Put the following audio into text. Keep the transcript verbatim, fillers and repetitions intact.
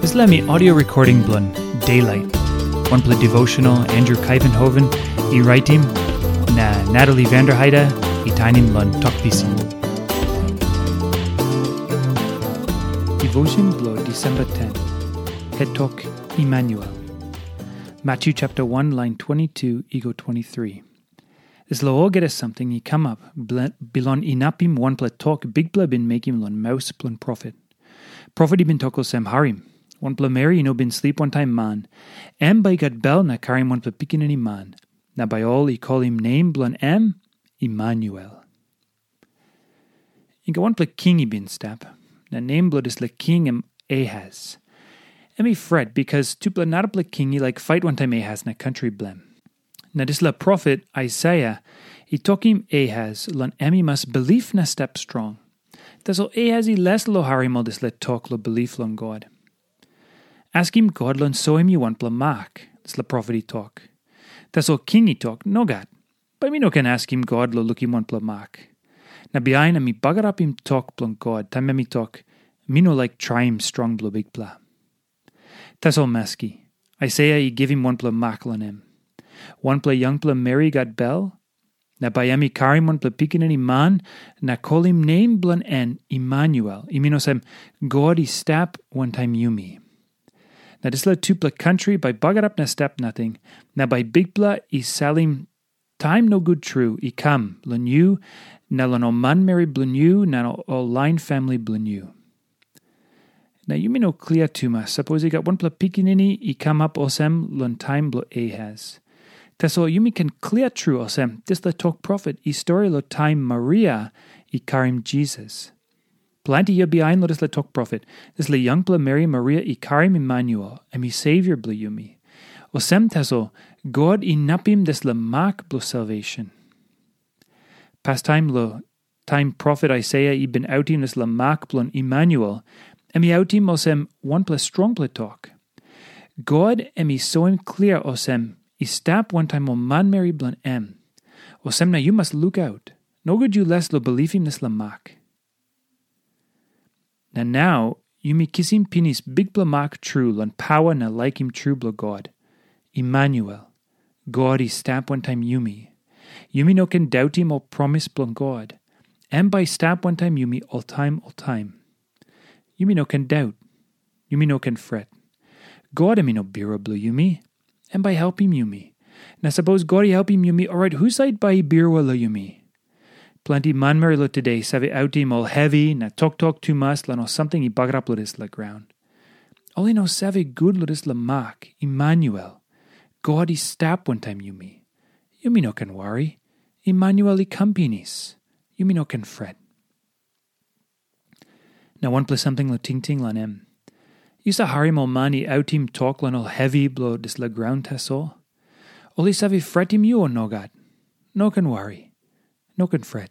Dispela mi audio recording bilong Daylight. Wanpela devotional Andrew Kaivenhoven i raitim, na Natalie Vanderheide i tainim long Tok Pisin. Devotion bilong December ten. Het tok Emmanuel. Matthew chapter one, line twenty-two i go twenty-three. Dispela olgeta samting i kamap bilong inapim wanpela tok Bikpela bin mekim long maus bilong profet. Profet i bin tok olsem, "Harim, wanpela meri i no bin slip wantaim man, em bai i gat bel na karim wanpela pikinini man, na bai ol i kolim nem bilong em Emmanuel." I gat wanpela king i bin stap, na nem bilong dispela king em Ahaz. Em i fret bikas tupela narapela king i laik fait wantaim Ahaz na kantri bilem. Na dispela profet Aisaia i tokim Ahaz long em i mas bilip na stap strong. Tasol Ahaz i les long harim ol dispela tok long bilip long God. "Askim God long soim yu wanpela mak," dispela profet i tok. Tasol king i tok, "Nogat. Bai mi no ken askim God long lukim wanpela mak. Na bihain em i bagarapim tok bilong God, taim em i tok, 'Mi no laik traim strong bilong Bikpela.'" Tasol maski, Aisaia i givim wanpela mak long em. Wanpela yangpela meri i gat bel, na bai em i karim wanpela pikinini man, na kolim nem bilong en Emmanuel, i min olsem, "God i stap wantaim yumi." Na dispela tupela kantri bai bagarap na stap nating, na bai Bikpela i salim taim nogut tru i kam long yu, na long ol manmeri bilong yu, na ol lain famili bilong yu. Na yumi no klia tumas sapos i gat wanpela pikinini i kamap olsem long taim bilong Ahaz. Tasol yumi ken klia tru olsem, dispela tok profet i stori long taim Maria i karim Jisas. Planti yia bihain long dispela tok profet, dispela yangpela meri Maria i karim Emmanuel, em i Savior bilong yumi. Olsem tasol, God inapim dispela mak bilong salvation. Pastaim long taim profet Aisaia i bin autim dispela mak bilong Emmanuel, em i autim olsem wanpela strongpela tok. God em i soim klia olsem i stap wantaim ol manmeri bilong em. Olsem na yu mas lukaut, nogut yu les long bilipim dispela mak. Na nau yumi kisim pinis bikpela mak tru long pawa na laikim tru bilong God. Emmanuel, God i stap wantaim yumi. Yumi no ken dautim ol promis bilong God. Em bai i stap wantaim yumi oltaim oltaim. Yumi no ken daut. Yumi no ken fret. God em i no birua bilong yumi. Em bai i helpim yumi. Na sapos God i helpim yumi, orait husat bai i birua long yumi? Planti manmeri long tude save autim ol hevi na toktok tumas long ol samting i bagarap long dispela graun. Ol i no save gut long dispela mak, Emmanuel. God i stap wantaim yumi. Yumi no ken wari. Emmanuel i kam pinis. Yumi no ken fret. Na wanpela samting long tingting long em. Yu sa harim ol man i autim tok long ol hevi bilong dispela graun tasol? Ol i save fretim yu o nogat? No ken wari. No ken fret.